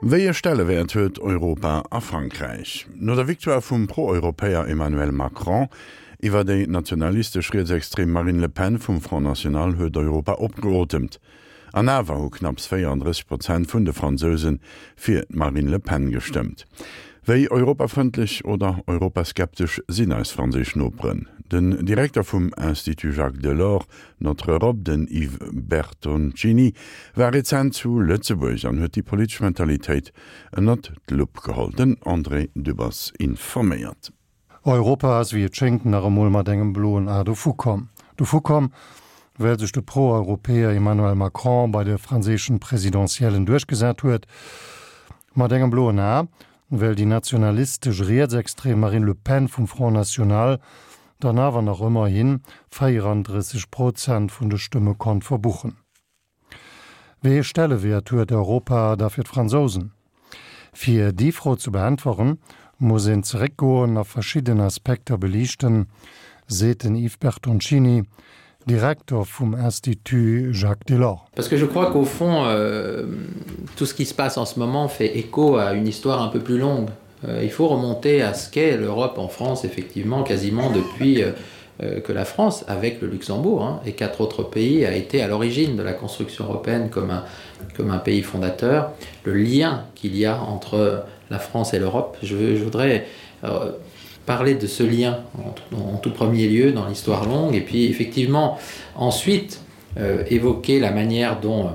Wéi e Stellewäert huet Europa a Frankräich? No der Victoire vum Pro-Europäer Emmanuel Macron iwwer déi nationalistesch rietsextrem Marine Le Pen vum Front National huet Europa opgeotemt. An awer hu knapps 34 Prozent vun de Fransouse fir d'Marine Le Pen gestëmmt. Wéi europafrëndlech oder europaskeptesch sinn eis franséisch Noperen? Den Direkter vum Institut Jacques Delors, Notre Europe, den Yves Bertoncini, war rezent zu Lëtzebuerg an huet déi politesch Mentalitéit ënnert d'Lupp geholl. Den André Dübbers informéiert. Europa ass wéi et schéngt nach emol mat engem bloen A dovu komm. Dovu komm, well sech de Pro-Europäer Emmanuel Macron bei de franséischen Presidentiellen duerchgesat huet. Mat engem bloen A, well déi nationalistesch rietsextrem Marine Le Pen vum Front National dann awer nach ëmmerhi 34 Prozent vun de Stëmme konnt verbuchen. Wéi ee Stellewäert huet Europa da fir d'Fransousen? Fir déi Fro ze beäntweren, muss een zeréckgoen a verschidden Aspekter beliichten, seet den Yves Bertoncini, Direkter vum Institut Jacques Delors. Parce que je crois qu'au fond euh, tout ce qui se passe en ce moment fait écho à une histoire un peu plus longue. Euh, il faut remonter à ce qu'est l'Europe en France effectivement quasiment depuis euh, euh, que la France avec le Luxembourg hein, et quatre autres pays a été à l'origine de la construction européenne comme un, comme un pays fondateur, le lien qu'il y a entre la France et l'Europe. Je, je voudrais euh, parler de ce lien en, en tout premier lieu dans l'histoire longue et puis effectivement ensuite euh, évoquer la manière dont euh,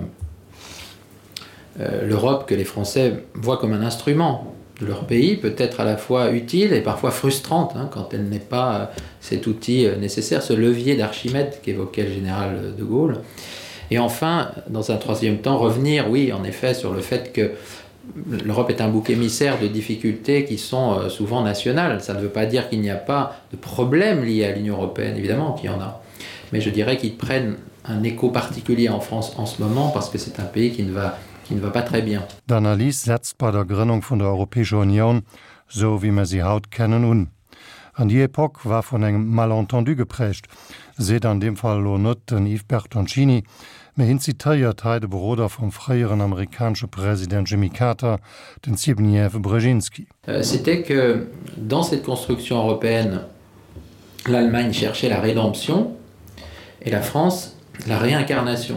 euh, l'Europe que les Français voient comme un instrument de leur pays peut être à la fois utile et parfois frustrante hein, quand elle n'est pas euh, cet outil euh, nécessaire, ce levier d'Archimède qu'évoquait le général euh, de Gaulle. Et enfin, dans un troisième temps, revenir, oui, en effet, sur le fait que l'Europe est un bouc émissaire de difficultés qui sont souvent nationales. Ça ne veut pas dire qu'il n'y a pas de problèmes liés à l'Union européenne, évidemment qu'il y en a. Mais je dirais qu'ils prennent un écho particulier en France en ce moment parce que c'est un pays qui ne va, qui ne va pas très bien. D'Analys setzt bei der Grënnung vun der Europäescher Unioun, sou wéi mer si haut kennen, un. An déi Epoque war vun engem Malentendu geprägt, seet an deem Fall elo net den Yves Bertoncini, mä hien zitéiert hei de Beroder vum fréieren amerikanesche President Jimmy Carter, den Zbigniew Brzezinski. C'était que dans cette construction européenne, l'Allemagne cherchait la rédemption et la France la réincarnation.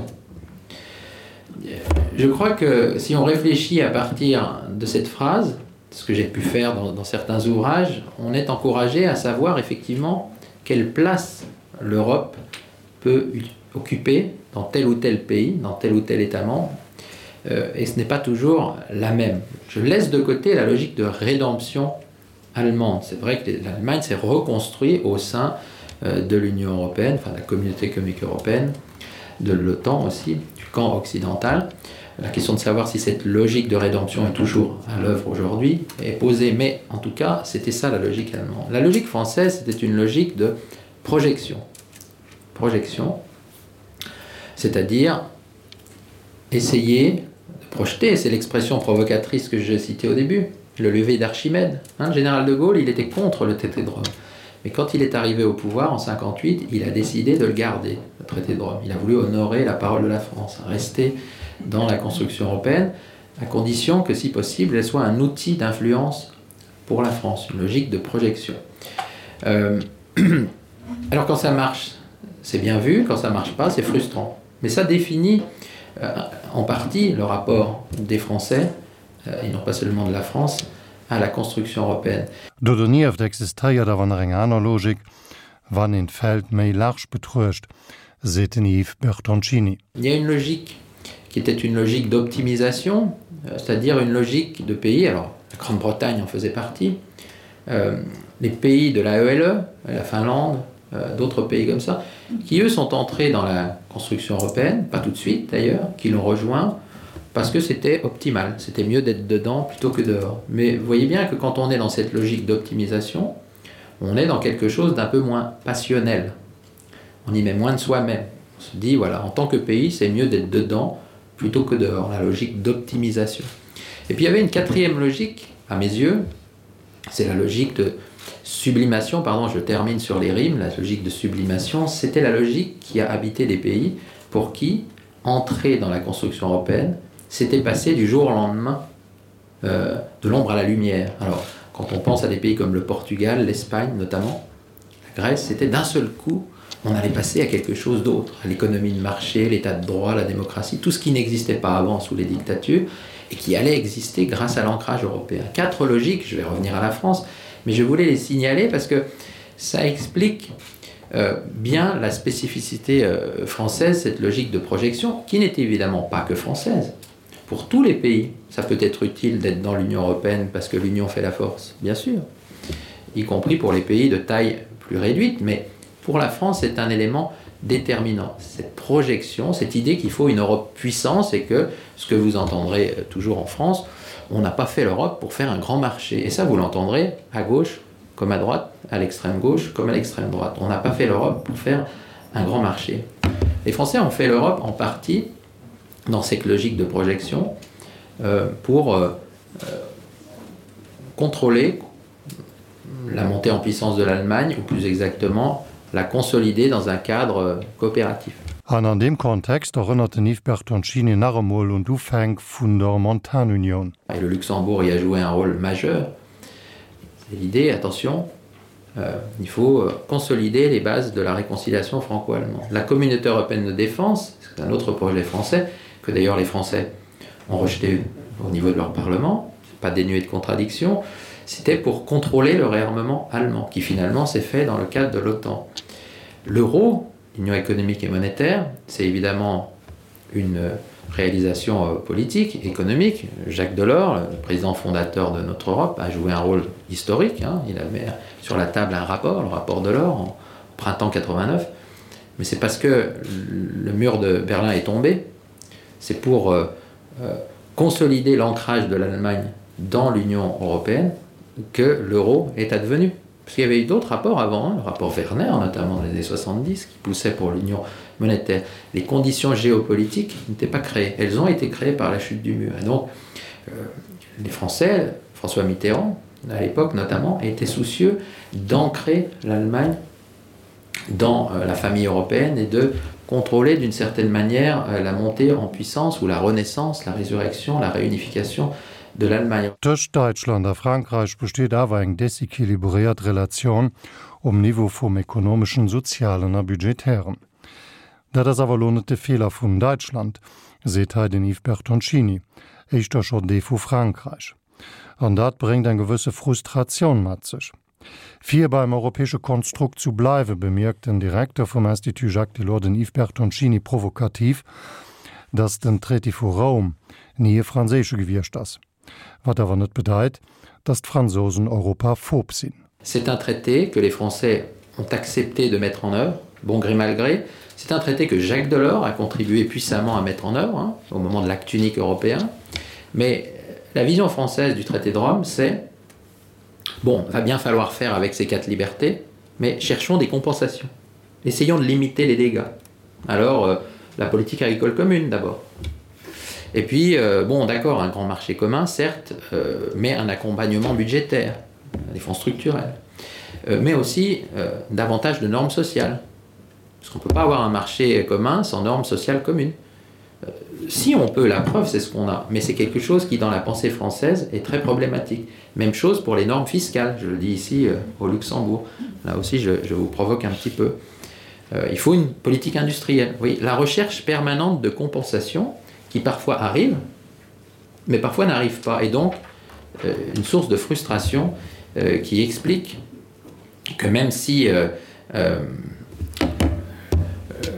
Je crois que si on réfléchit à partir de cette phrase, ce que j'ai pu faire dans, dans certains ouvrages, on est encouragé à savoir effectivement quelle place l'Europe peut occuper dans tel ou tel pays, dans tel ou tel État membre, euh, et ce n'est pas toujours la même. Je laisse de côté la logique de rédemption allemande. C'est vrai que l'Allemagne s'est reconstruite au sein euh, de l'Union européenne, enfin la communauté économique européenne, de l'OTAN aussi, du camp occidental. La question de savoir si cette logique de rédemption est toujours à l'œuvre aujourd'hui est posée, mais en tout cas, c'était ça la logique allemande. La logique française, c'était une logique de projection. Projection, c'est-à-dire essayer de projeter, c'est l'expression provocatrice que j'ai citée au début, le lever d'Archimède. Hein, le général de Gaulle, il était contre le traité de Rome. Mais quand il est arrivé au pouvoir en 58, il a décidé de le garder, le traité de Rome. Il a voulu honorer la parole de la France, rester dans la construction européenne, à condition que, si possible, elle soit un outil d'influence pour la France, une logique de projection. Euh, alors quand ça marche, c'est bien vu, quand ça marche pas, c'est frustrant. Mais ça définit euh, en partie le rapport des Français, euh, et non pas seulement de la France, à la construction européenne. Do donieft existéiert awer nach eng aner Logik, wann een d'Feld méi large betruecht, seet den Yves Bertoncini. Il y a une logique qui était une logique d'optimisation, euh, c'est-à-dire une logique de pays, alors la Grande-Bretagne en faisait partie, euh, les pays de la ELE, la Finlande, euh, d'autres pays comme ça, qui eux sont entrés dans la construction européenne, pas tout de suite d'ailleurs, qui l'ont rejoint parce que c'était optimal, c'était mieux d'être dedans plutôt que dehors. Mais vous voyez bien que quand on est dans cette logique d'optimisation, on est dans quelque chose d'un peu moins passionnel. On y met moins de soi-même. On se dit voilà, en tant que pays, c'est mieux d'être dedans plutôt que dehors, la logique d'optimisation. Et puis il y avait une quatrième logique, à mes yeux, c'est la logique de sublimation, pardon, je termine sur les rimes, la logique de sublimation, c'était la logique qui a habité des pays pour qui entrer dans la construction européenne, c'était passer du jour au lendemain. euh, de l'ombre à la lumière. Alors quand on pense à des pays comme le Portugal, l'Espagne notamment, la Grèce, c'était d'un seul coup, on allait passer à quelque chose d'autre, à l'économie de marché, l'état de droit, la démocratie, tout ce qui n'existait pas avant sous les dictatures et qui allait exister grâce à l'ancrage européen. Quatre logiques, je vais revenir à la France, mais je voulais les signaler parce que ça explique euh, bien la spécificité euh, française, cette logique de projection, qui n'est évidemment pas que française. Pour tous les pays, ça peut être utile d'être dans l'Union européenne parce que l'Union fait la force, bien sûr, y compris pour les pays de taille plus réduite, mais pour la France, c'est un élément déterminant. Cette projection, cette idée qu'il faut une Europe puissance et que ce que vous entendrez euh, toujours en France, on n'a pas fait l'Europe pour faire un grand marché. Et ça, vous l'entendrez à gauche comme à droite, à l'extrême gauche comme à l'extrême droite. On n'a pas fait l'Europe pour faire un grand marché. Les Français ont fait l'Europe en partie dans cette logique de projection euh, pour euh, euh, contrôler la montée en puissance de l'Allemagne ou plus exactement la consolider dans un cadre euh, coopératif. An an deem Kontext erënnert den Yves Bertoncini nach emol un d'Ufänk vun der Montanunion. Et le Luxembourg y a joué un rôle majeur. C'est l'idée, attention, euh, il faut euh, consolider les bases de la réconciliation franco-allemande. La communauté européenne de défense, c'est un autre projet français que d'ailleurs les Français ont rejeté au niveau de leur parlement, pas dénué de contradictions, c'était pour contrôler le réarmement allemand qui finalement s'est fait dans le cadre de l'OTAN. L'euro, l'Union économique et monétaire, c'est évidemment une réalisation euh, politique, économique. Jacques Delors, le président fondateur de notre Europe, a joué un rôle historique. Hein. Il avait sur la table un rapport, le rapport Delors, en printemps 89. Mais c'est parce que le mur de Berlin est tombé, c'est pour euh, euh, consolider l'ancrage de l'Allemagne dans l'Union européenne que l'euro est advenu. Parce qu'il y avait eu d'autres rapports avant, hein, le rapport Werner notamment dans les années 70 qui poussait pour l'union monétaire. Les conditions géopolitiques n'étaient pas créées. Elles ont été créées par la chute du mur. Et donc euh, les Français, François Mitterrand à l'époque notamment, étaient soucieux d'ancrer l'Allemagne dans euh, la famille européenne et de contrôler d'une certaine manière euh, la montée en puissance ou la renaissance, la résurrection, la réunification de l'Allemagne. Tëscht Däitschland a Frankräich besteet awer eng desequilibréiert Relatioun um Niveau vum ekonomeschen, sozialen a budgetären. Dat ass awer elo net de Feeler vun Däitschland, seet hei den Yves Bertoncini, éischter schonn dee vu Frankräich. An dat bréngt eng gewësse Frustratioun mat sech. Fir beim europäesche Konstrukt zu bleiwen, bemierkt den Direkter vum Institut Jacques Delors, den Yves Bertoncini, provokativ, datt den Traité vu Roum ni e franséische gewiescht ass. Wat awer net bedeit, datt d'Fransousen europaphob sinn. C'est un traité que les Français ont accepté de mettre en œuvre, bon gré mal gré. C'est un traité que Jacques Delors a contribué puissamment à mettre en œuvre hein, au moment de l'acte unique européen. Mais la vision française du traité de Rome, c'est Bon, va bien falloir faire avec ces quatre libertés, mais cherchons des compensations. Essayons de limiter les dégâts. Alors, euh, la politique agricole commune d'abord. Et puis, euh, bon, d'accord, un grand marché commun, certes, euh, mais un accompagnement budgétaire, des fonds structurels, euh, mais aussi euh, davantage de normes sociales. Parce qu'on ne peut pas avoir un marché commun sans normes sociales communes. Euh, si on peut, la preuve, c'est ce qu'on a, mais c'est quelque chose qui, dans la pensée française, est très problématique. Même chose pour les normes fiscales, je le dis ici euh, au Luxembourg. Là aussi, je, je vous provoque un petit peu. Euh, il faut une politique industrielle. Oui, la recherche permanente de compensation qui parfois arrive, mais parfois n'arrive pas, et donc euh, une source de frustration euh, qui explique que même si euh, euh, euh,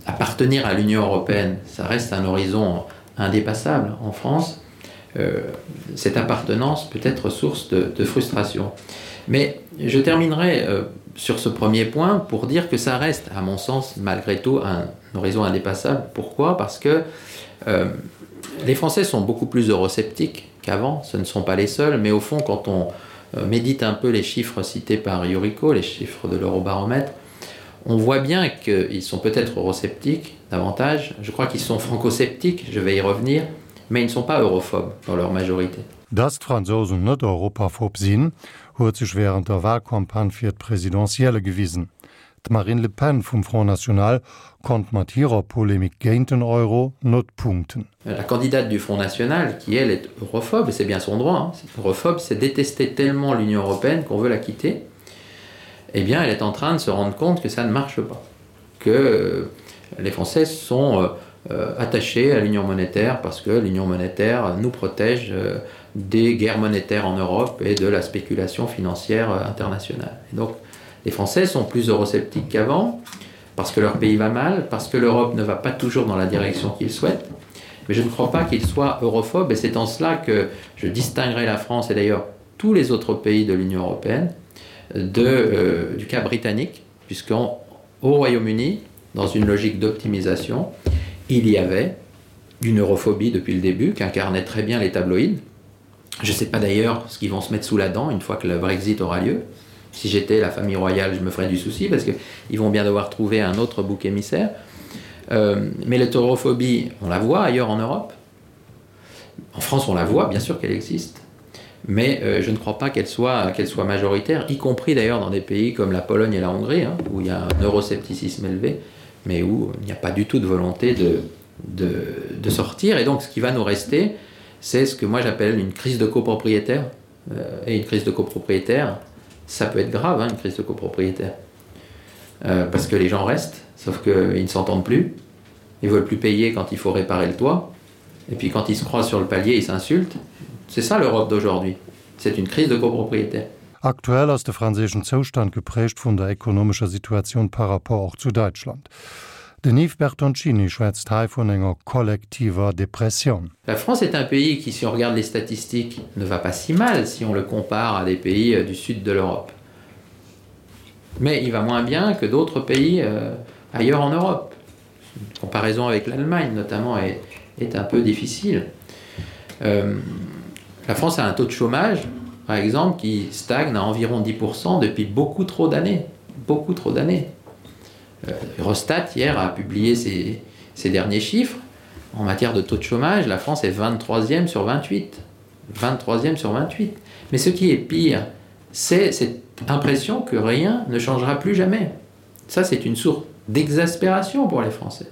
appartenir à l'Union européenne, ça reste un horizon indépassable en France, euh, cette appartenance peut être source de, de frustration. Mais je terminerai euh, sur ce premier point pour dire que ça reste, à mon sens, malgré tout, un horizon indépassable. Pourquoi Parce que euh, les Français sont beaucoup plus eurosceptiques qu'avant, ce ne sont pas les seuls, mais au fond, quand on euh, médite un peu les chiffres cités par Yuriko, les chiffres de l'eurobaromètre, on voit bien qu'ils sont peut-être eurosceptiques davantage, je crois qu'ils sont francosceptiques, je vais y revenir, mais ils ne sont pas europhobes dans leur majorité. Dass d'Fransousen net europaphob sinn, huet sech wärend der Walcampagne fir d'Presidentielle gewisen. D'Marine Le Pen vum Front National konnt mat hirer Polemik géint den Euro net punkten. La candidate du Front National, qui elle est europhobe, et c'est bien son droit, hein, europhobe, c'est détester tellement l'Union européenne qu'on veut la quitter, eh bien elle est en train de se rendre compte que ça ne marche pas, que euh, les Français sont euh, euh, attachés à l'Union monétaire parce que l'Union monétaire nous protège euh, des guerres monétaires en Europe et de la spéculation financière euh, internationale. Et donc les Français sont plus eurosceptiques qu'avant parce que leur pays va mal, parce que l'Europe ne va pas toujours dans la direction qu'ils souhaitent. Mais je ne crois pas qu'ils soient europhobes et c'est en cela que je distinguerai la France et d'ailleurs tous les autres pays de l'Union européenne de, euh, du cas britannique, puisqu'au Royaume-Uni, dans une logique d'optimisation, il y avait une europhobie depuis le début qu'incarnaient très bien les tabloïds. Je ne sais pas d'ailleurs ce qu'ils vont se mettre sous la dent une fois que le Brexit aura lieu. Si j'étais la famille royale, je me ferais du souci parce qu'ils vont bien devoir trouver un autre bouc émissaire. Euh, mais l'hétérophobie, on la voit ailleurs en Europe. En France, on la voit, bien sûr qu'elle existe. Mais euh, je ne crois pas qu'elle soit, qu'elle soit majoritaire, y compris d'ailleurs dans des pays comme la Pologne et la Hongrie, hein, où il y a un euroscepticisme élevé, mais où il n'y a pas du tout de volonté de, de, de sortir. Et donc ce qui va nous rester, c'est ce que moi j'appelle une crise de copropriétaire. Euh, et une crise de copropriétaire, ça peut être grave, hein, une crise de copropriétaire. Euh, parce que les gens restent, sauf qu'ils ne s'entendent plus, ils veulent plus payer quand il faut réparer le toit, et puis quand ils se croisent sur le palier, ils s'insultent. C'est ça l'Europe d'aujourd'hui. C'est une crise de copropriétaire. Aktuell ass de franséischen Zoustand geprägt vun der ekonomescher Situatioun par rapport och zu Däitschland. Den Yves Bertoncini schwätzt hei vun enger kollektiver Depressioun. La France est un pays qui, si on regarde les statistiques, ne va pas si mal si on le compare à des pays euh, du sud de l'Europe. Mais il va moins bien que d'autres pays euh, ailleurs en Europe. Une comparaison avec l'Allemagne notamment est, est un peu difficile. Euh, la France a un taux de chômage, par exemple, qui stagne à environ 10% depuis beaucoup trop d'années. Beaucoup trop d'années. Euh, Eurostat, hier, a publié ses, ses derniers chiffres. En matière de taux de chômage, la France est 23e sur 28. 23e sur 28. Mais ce qui est pire, c'est cette impression que rien ne changera plus jamais. Ça, c'est une source d'exaspération pour les Français.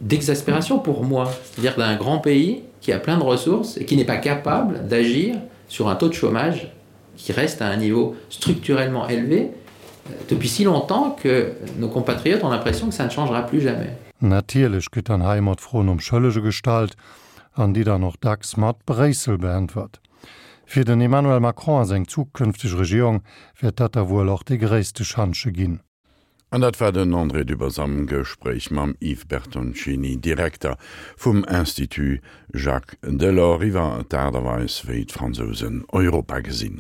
D'exaspération pour moi, c'est-à-dire d'un grand pays qui a plein de ressources et qui n'est pas capable d'agir sur un taux de chômage qui reste à un niveau structurellement élevé euh, depuis si longtemps que nos compatriotes ont l'impression que ça ne changera plus jamais. Natierlech gëtt dann hei ëmmer d'Fro nom Schëllege gestallt an déi dann och dacks mat Bréissel beäntwert. Fir den Emmanuel Macron a seng zukünfteg Regierung wäert dat da wuel och dee gréisste Schantje ginn. An dat war den André Dübbers am Gespréich mam Yves Bertoncini, Direkter vum Institut Jacques Delors, iwwer d'Aart a Weis, wéi d'Fransousen Europa gesinn.